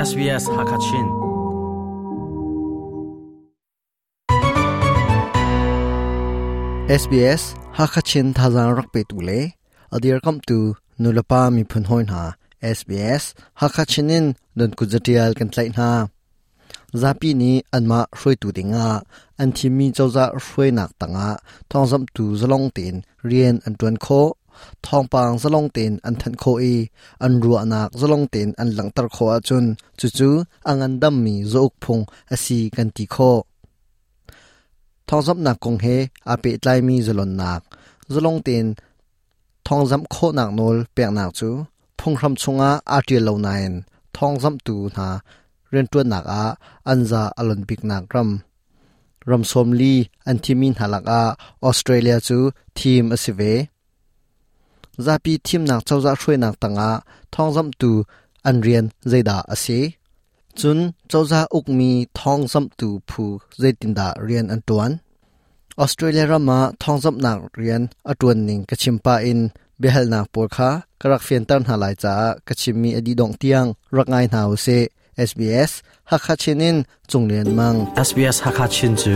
SBS Hakachin. SBS Hakachin thazang rak pe tu le adir kam tu nulapa miphun hoi hna SBS Hakachin in don kuzatial kan tlai hna. Zapi nih anmah hruaitu dingah an thimmi cozah hruainak tangah thawngzamhtu zalong tein rian an ṭuan khawh, thawngpang zalong tein an thanh khawh i an ruahnak zalong tein an langhter khawh ahcun cucu a ngandammi zauk phung a si kan ti khawh. Thawngzamhnak kong he aa pehtlaimi zalonnak, zalong tein Thawngzamh khawhnak nawl peknak cu phunghram chungah aa ṭial lo nain thawngzamhtu hna rianṭuannak ah an za a lon biknak ram. Ram 40 an thimmi hna lakah Australia cu thim a si ve. Zapi thimnak cozah hruainak tangah thawngzamhtu an rian zeidah a si? Cun cozah ukmi thawngzamhtu phu zeitindah rian an ṭuan? Australia ram ah thawngzamhnak rian a ṭuan ning ka chim pah in biahalnak pawl kha ka rak fianter hna lai caah ka chimmi a dih dongh tiang rak ngai hna usih. SBS Hakha Chin in Cung Lian Mang. SBS Hakha Chin cu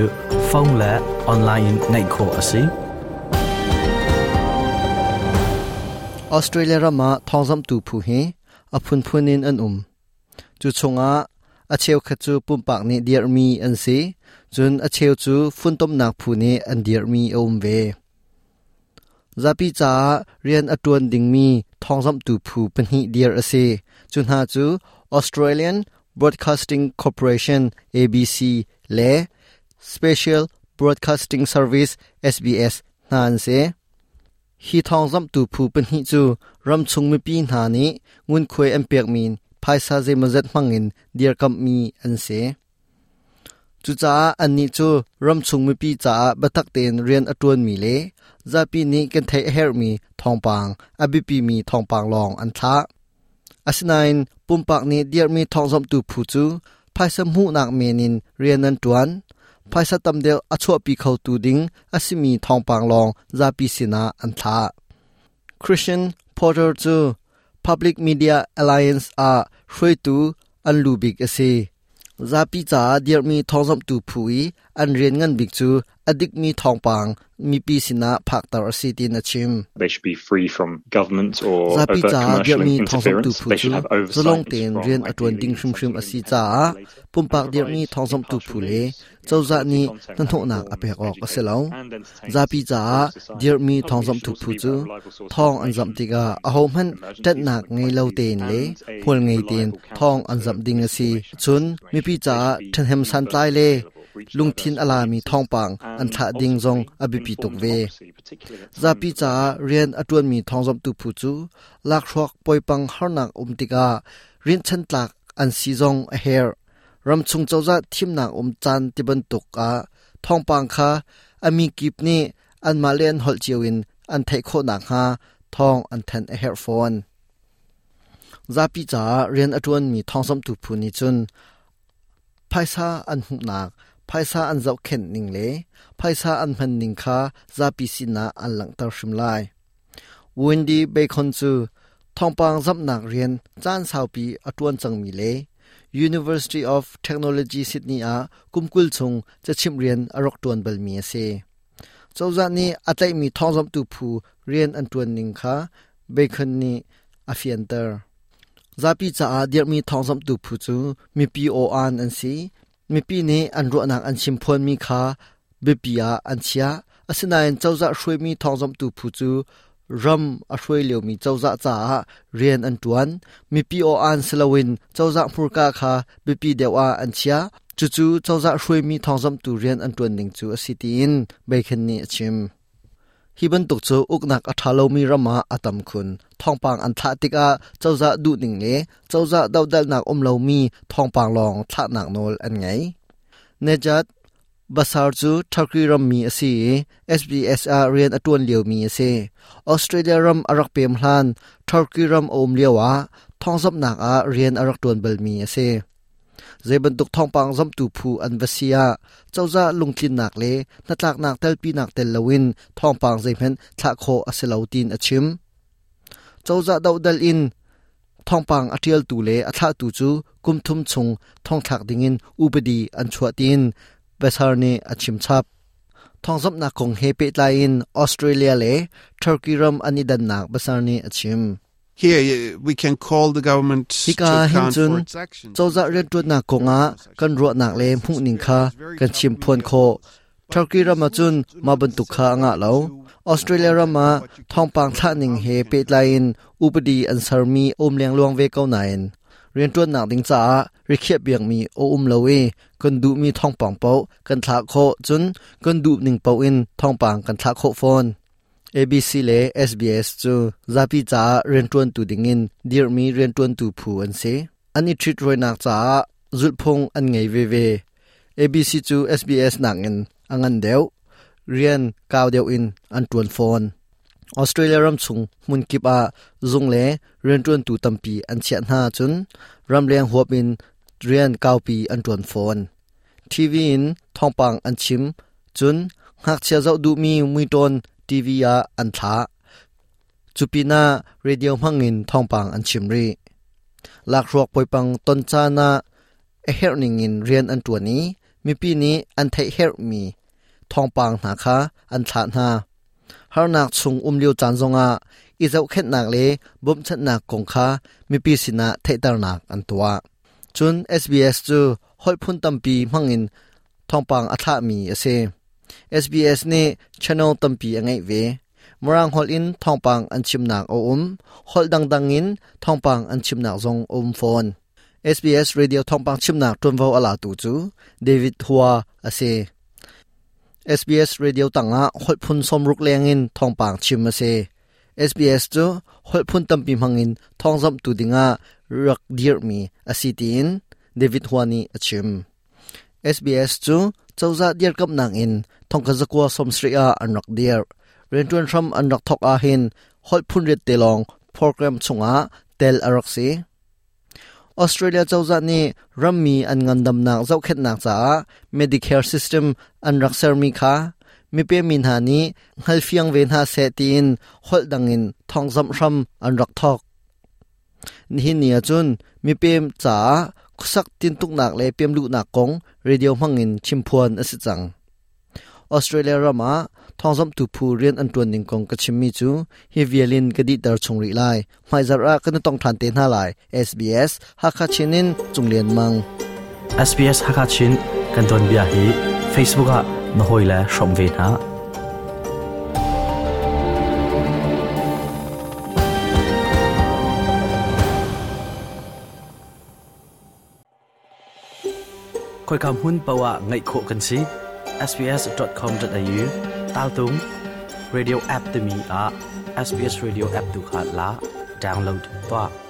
phone le online in ngaih khawh a si. Australia ram ah thawngzamhtu phu hi a phunphun in an um. Cu chungah a cheukhat cu pumpak nih dirhmi an si, cun a cheu cu funtomnak phu nih an dirhmi a um ve. Zapi caah rian a ṭuan dingmi thawngzamhtu phu pahnih dirh a si. Cu hna cu Australian Broadcasting Corporation ABC le Special Broadcasting Service SBS hna an si. Hi thawngzamhtu phu pahnih cu ramchung mipi hna nih ngunkhuai an pekmi phaisa zeimawzat hmangin dirkamhmi an si. Cucaah annih cu ramchung mipi caah biatak tein rian a ṭuanmi le zapi nih kan theih a herhmi thawngpang, a biapimi thawngpang lawng an thlah. Asinain pumpak nih dirhmi thawngzamhtu phu cu phaisa hmuhnak men in rian an ṭuan. Phaisa tam deuh a chuahpi khotu ding a simi thawngpang lawng zapi sinah an thlah. Christian Porter cu Public Media Alliance ah hruaitu an lu bik a si. Zapi caah dirhmi thawngzamhtu phu i an rian ngan bik cu a dikmi thawngpang mipi sinah phakter a si tiin a chim. They should be free from government or Zapi overt caah commercial dirhmi thawngzamhtu interference. phu They cu should have oversight zalong into tein from rian a ṭuan ideally ding hrimhrim a essentially si caah independent regulator pumpak and dirhmi provide thawngzamhtu impartial phu le news, cozah quality nih content that hnahnawhnak a informs, pek awk a si educates lo. and entertains Zapi the caah broader society. dirhmi Public media should thawngzamhtu also phu be cu about reliable sources of thawng an zamh information tikah in times of ahohmanh emergencies ṭanhnak and ngei lo crises tein le and a hmual ngei tein reliable counter thawng an to zamh ding a si. misinformation and Cun mipi disinformation. They caah should be ṭhahnem santlai universally le available, reach lungthin diverse a lami audiences thawngpang an and thlah ding zong ultimately a biapi tuk informed ve. democracy, particularly at times Zapi of caah elections. rian a ṭuanmi thawngzamhtu phu cu lakhruak poipang harnak um tikah rinhchan tlak an si zong a herh. Ramchung cozah thimnak um caan tibantuk ah thawngpang kha a mi kip nih anmah le an holh cio in an theih khawh nakhnga thawng an thanh a herh fawn. Zapi caah rian a ṭuanmi thawngzamhtu phu nih cun phaisa an hmuhnak, phaisa an zohkhenh ning le phaisa an hman ning kha zapi sinah an langhter hrim lai. Wendy Bacon cu thawngpang zamhnak rian caan saupi a ṭuan cangmi le University of Technology Sydney ah kum 20 chung cachimh rian a rak ṭuan balmi a si. Cozah nih a tlaihmi thawngzamhtu phu rian an ṭuan ning kha Bacon nih a fianter. Zapi caah dirhmi thawngzamhtu phu cu mipi aw-aan an si. Mipi nih an ruahnak an chimphuanmi kha biapi ah an chiah. Asinain cozah hruaimi thawngzamhtu phu cu ram a hruai liomi cozah caah rian an ṭuan. Mipi aw-aan si loin cozah hmurka kha biapi deuh ah an chiah. Cucu cozah hruaimi thawngzamhtu rian an ṭuan ning cu a si tiin Bacon nih a chim. Hi bantuk cu uknak a ṭha lomi ram ah a tam khun. Thawngpang an thlah tikah cozah duhning le cozah dohdalhnak um lomi thawngpang lawng thlahnak nawl an ngei. Nejat Basar cu Turkey rammi a si i SBS ah rian a ṭuan liomi a si. Australia ram a rak pem hlan Turkey ram a um lioah thawngzamhnak ah rian a rak ṭuan balmi a si. Zeibantuk thawngpang zamtu phu an va si ah cozah lungtlinnak le hnatlaknak telpinak tel loin thawngpang zeihmanh thlah khawh a si lo tiin a chim. Cozah dohdal in thawngpang a ṭialtu le a thlahtu cu kum thum chung thongthlak dingin upadi an chuah tiin Besar nih a chim chap. Thawngzamhnak kong he pehtlai in Australia le Turkey ram an i dannak Besar nih a chim. Here we can call the government Hika to hin account cun for its actions. cozah rianṭuannak kongah kan ruahnak le hmuhning kha kan chimphuan khawh. Turkey ram ah cun mah bantuk kha a ngah lo. Australia ram ah thawngpang thlah ning he pehtlai in upadi an sermi a um lengluang ve ko nain rianṭuannak ding caah rikhiah piakmi a um lo i kan duhmi thawngpang paoh kan thlah khawh cun kan duh ning paoh in thawngpang kan thlah khawh fawn. ABC le SBS cu zapi caah rianṭuantu dingin dirhmi rianṭuantu phu an si. An i ṭhitrawinak caah zulhphung an ngei veve. ABC cu SBS nakin a ngan deuh, rian kau deuh in an ṭuan fawn. Australia ram chung hmun kip ah zung le rianṭuantu tampi an chiah hna cun ramleng huap in rian kaupi an ṭuan fawn. TV in thawngpang an chim cun ngakchia zoh duhmi muitawn TV ah an thlah. Cu pinah radio hmangin thawngpang an chim rih. Lakhruak poipang ton caan ah a herh ningin rian an ṭuan i mipi nih an theih herhmi thawngpang hna kha an thlah hna. Harnak chung um lio caan zongah i zohkhenhnak le bawmhchanhnak kong kha mipi sinah theihternak an tuah. Cun SBS cu holh phun tampi hmangin thawngpang a thlahmi a si. SBS nih channel tampi a ngeih ve. Mirang holh in thawngpang an chimnak a um. Holh dangdang in thawngpang an chimnak zong a um fawn. SBS Radio thawngpang chimnak ṭuanvo a latu cu David Hua a si. SBS Radio tangah holh phun 60 lengin thawngpang chim a si. SBS cu holh phun tampi hmangin thawngzamhtu dingah rak dirhmi a si tiin David Hua nih a chim. SBS cu cozah dirkamhnak in thongkhat zakua sawmsarih ah an rak dirh. Rianṭuan hram an rak thawk ahhin holh phun riat te lawng program chungah tel a rak si. Australia cozah nih rammi an ngandamnak zohkhenhnak caah Medicare system an rak sermi kha mipemi hna nih hngalfiang ve hna seh tiin holh dangin thawngzamh hram an rak thawk. Nihin ni ahcun mipem caah khuasak tintuknak le pemluhnak kong radio hmangin chimphuan a si cang. Australia ram ah thawngzamhtu phu rian an ṭuan ning kong ka chimmi cu hi vial in ka dihter chung rih lai. Hmaizarh ah kan i tong ṭhan te hna lai. SBS Hakha Chin in Cung Lian Mang. SBS Hakha Chin kan tuanbia hi Facebook ah na hawile hrawm ve hna. Khoika hmun paoh ah ngaih khawh kan si. sbs.com.au taltung radio app timi ah SBS Radio app tu kha la download tuah.